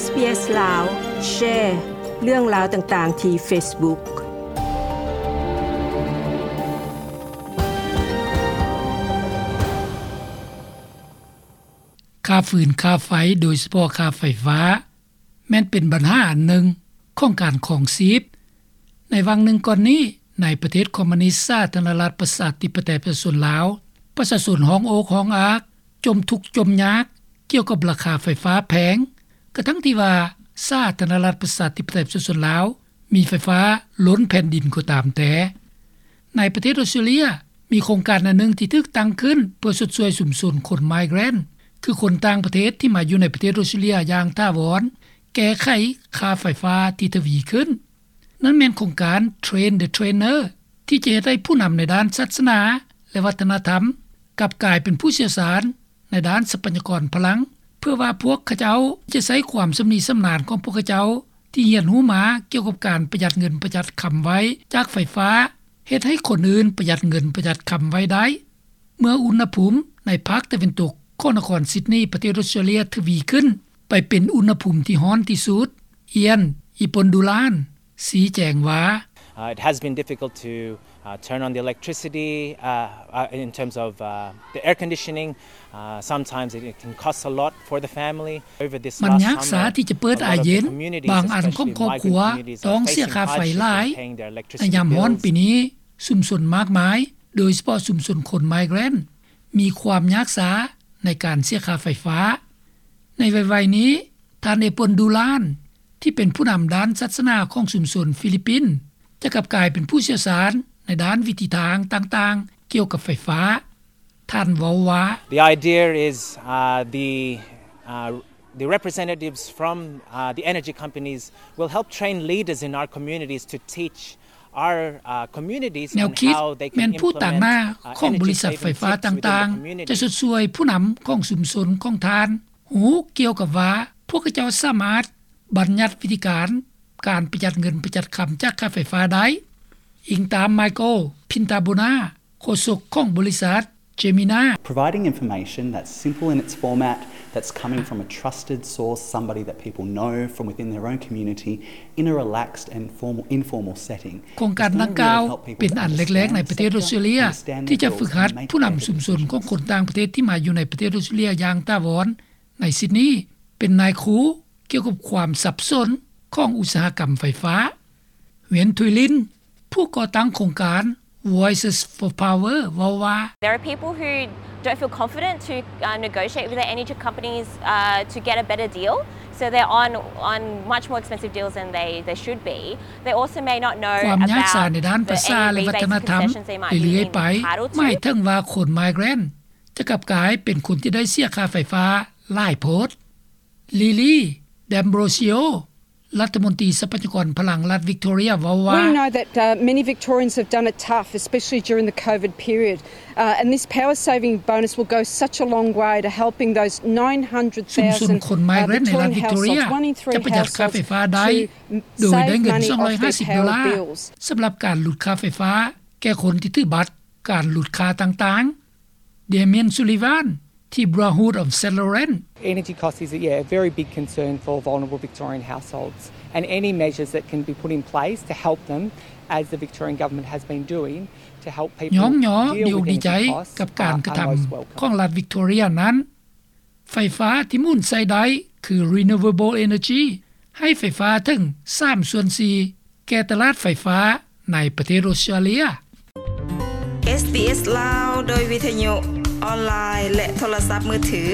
ເອສ ບີ ເອສ ລາວ ແຊເລື່ອງລາວຕ່າງໆທີ່ Facebook. ຄ່າຟືນ, ຄ່າໄຟ, ໂດຍສະເພາະຄ່າໄຟຟ້າ ແມ່ນເປັນບັນຫາອັນໜຶ່ງຂອງການຄອງຊີບ. ໃນຫວ່າງໜຶ່ງກ່ອນນີ້, ໃນປະເທດຄອມມູນິດສາທາລະນະລັດປະຊາທິປະໄຕປະຊາຊົນລາວ, ປະຊາຊົນຮ້ອງໂອກຮ້ອງອາກ, ຈົ່ມທຸກຈົ່ມຍາກກ່ຽວກັບລາຄາໄຟຟ້າແພງ, ກະທັ່ງທີ່ວ່າສາທາລະນະລັດປະຊາທິປະໄຕປະຊາຊົນລາວມີໄຟຟ້າລົ້ນແຜ່ນດິນກໍຕາມແຕ່. ໃນປະເທດອອສເຕຣເລັຍ, ມີໂຄງການອັນໜຶ່ງທີ່ຖືກຕັ້ງຂຶ້ນເພື່ອຊົດຊ່ວຍຊຸມຊົນຄົນໄມເກຣນ, ຄືຄົນຕ່າງປະເທດທີ່ມາຢູ່ໃນປະເທດອອສເຕຣເລັຍຢ່າງຖາວອນ, ແກ້ໄຂຄ່າໄຟຟ້າທີ່ທະວີຂຶ້ນ. ນັ້ນແມ່ນໂຄງການ Train the Trainer ທີ່ຈະເຮັດໃຫ້ຜູ້ນຳໃນດ້ານສາສະໜາ ແລະ ວັດທະນະທຳ ກັບກາຍເປັນຜູ້ຊ່ຽວຊານໃນດ້ານຊັບພະຍາກອນພະລັງ, ເພື່ອວ່າພວກເຂົາເຈົ້າຈະໃຊ້ຄວາມຊຳນິຊຳນານຂອງພວກເຂົາເຈົ້າທີ່ຮຽນຮູ້ມາກ່ຽວກັບການປະຢັດເງິນປະຢັດຄຳໄວ້ຈາກໄຟຟ້າ ເຮັດໃຫ້ຄົນອື່ນປະຢັດເງິນປະຢັດຄຳໄວ້ໄດ້. ເມື່ອອຸນຫະພູມໃນພາກຕາເວັນຕົກຂອງນະຄອນຊິດນີ ປະເທດອອສເຕຣເລັຍ ທະວີຂຶ້ນໄປເປັນອຸນຫະພູມທີ່ຮ້ອນທີ່ສຸດ, ອຽນ ອີປອນດູລານ ຊີ້ແຈງວ່າ, Uh, it has been difficult to, uh, turn on the electricity, uh, uh, in terms of, uh, the air conditioning. Uh, sometimes it, it can cost a lot for the family. Over this last summer, ມັນຍາກຊາທີ່ຈະເປີດອາເຢັນ, ບາງອັນຂອງຄອບຄົວຕ້ອງເສຍຄ່າໄຟຫຼາຍ. ໃນຍາມຮ້ອນປີນີ້, ຊຸມຊົນມາກມາຍ, ໂດຍສະເພາະຊຸມຊົນຄົນໄມເກຣນ, ມີຄວາມຍາກຊາໃນການເສຍຄ່າໄຟຟ້າ. ໃນໄວໆນີ້, ທ່ານ ເອປອນ ດູລານ ທີ່ເປັນຜູ້ນຳດ້ານສາສະໜາຂອງຊຸມຊົນຟີລິບປິນ ຈະກັບກາຍເປັນຜູ້ຊ່ຽວຊານໃນດ້ານວິທີທາງຕ່າງໆກ່ຽວກັບໄຟຟ້າ. ທ່ານເວົ້າວ່າ, The idea is, uh, the, uh, the representatives from, uh, the energy companies will help train leaders in our communities to teach our, uh, communities on how they can implement, uh, energy saving tips within the community. ແນວຄິດແມ່ນຜູ້ຕາງໜ້າຂອງບໍລິສັດໄຟຟ້າຕ່າງໆ ຈະຊົດຊ່ວຍຜູ້ນຳຂອງຊຸມຊົນຂອງທ່ານ ຮູ້ກ່ຽວກັບວ່າພວກເຂົາເຈົ້າສາມາດບັນຍັດວິທີການ ການປະຢັດເງິນປະຢັດຄຳຈາກຄ່າໄຟຟ້າໄດ້, ອີງຕາມ ໄມເຄິນ ພິນຕາໂບນາ ໂຄສົກຂອງບໍລິສັດ ເຈມິນາ. Providing information that's simple in its format, that's coming from a trusted source, somebody that people know from within their own community, in a relaxed and formal, informal setting. ໂຄງການດັ່ງກ່າວເປັນອັນແລກໆໃນປະເທດອອສເຕຣເລັຍ ທີ່ຈະຝຶກຫັດຜູ້ນຳຊຸມຊົນຂອງຄົນຕ່າງປະເທດທີ່ມາຢູ່ໃນປະເທດອອສເຕຣເລັຍຢ່າງຖາວອນ. ໃນຊິດນີ ເປັນນາຍຄູກ່ຽວກັບຄວາມສັບສົນຂອງອຸດສາຫະກຳໄຟຟ້າ. ເວນ ທຸຍລິນ ຜູ້ກໍ່ຕັ້ງໂຄງການ Voices for Power ເວົ້າວ່າ, There are people who don't feel confident to, uh, negotiate with their energy companies, uh, to get a better deal. So they're on, on much more expensive deals than they, they should be. They also may not know about the any rebates and concessions they might be entitled to. ຄວາມຍາກສາໃນດ້ານພາສາ ແລະ ວັດທະນະທຳເລື້ອຍໆໄປ ໝາຍເຖິງວ່າຄົນໄມເກຣນຈະກັບກາຍເປັນຄົນທີ່ໄດ້ເສຍຄ່າໄຟຟ້າຫຼາຍໂພດ. ລີລີ ແດມໂບຣຊິໂອ ລັດຖະມົນຕີຊັບພະຍາກອນພະລັງລັດວິກຕໍເຣຍ ເວົ້າວ່າ, We know that, uh, many Victorians have done it tough, especially during the COVID period. Uh, and this power saving bonus will go such a long way to helping those nine hundred thousand, uh, Victorian households, one in three households, ຊຸມຊົນຄົນໄມເກຣນໃນລັດວິກຕໍເຣຍ ຈະປະຢັດຄ່າໄຟຟ້າໄດ້ ໂດຍໄດ້ເງິນສອງຮ້ອຍຫ້າສິບໂດລາ ສຳລັບການຫຼຸດຄ່າໄຟຟ້າແກ່ຄົນທີ່ຖືບັດການຫຼຸດຄ່າຕ່າງໆ. ເດມຽນ ຊູລີວານ ທີ່ Brotherhood of Saint Laurent. Energy cost is, yeah, a very big concern for vulnerable Victorian households, and any measures that can be put in place to help them as the Victorian government has been doing to help people deal with energy costs are most welcome. ຍ້ອງຍໍ ດີອົກດີໃຈກັບການກະທຳຂອງລັດວິກຕໍເຣຍນັ້ນ. ໄຟຟ້າທີ່ໝູນໃຊ້ໄດ້ຄື renewable energy ໃຫ້ໄຟຟ້າເຖິງສາມສ່ວນສີ່ແກ່ຕະຫຼາດໄຟຟ້າໃນປະເທດອອສເຕຣເລັຍ. ເອສ ບີ ເອສ ລາວ ໂດຍວິທະຍຸ, ອອນລາຍ ແລະ ໂທລະສັບມືຖື.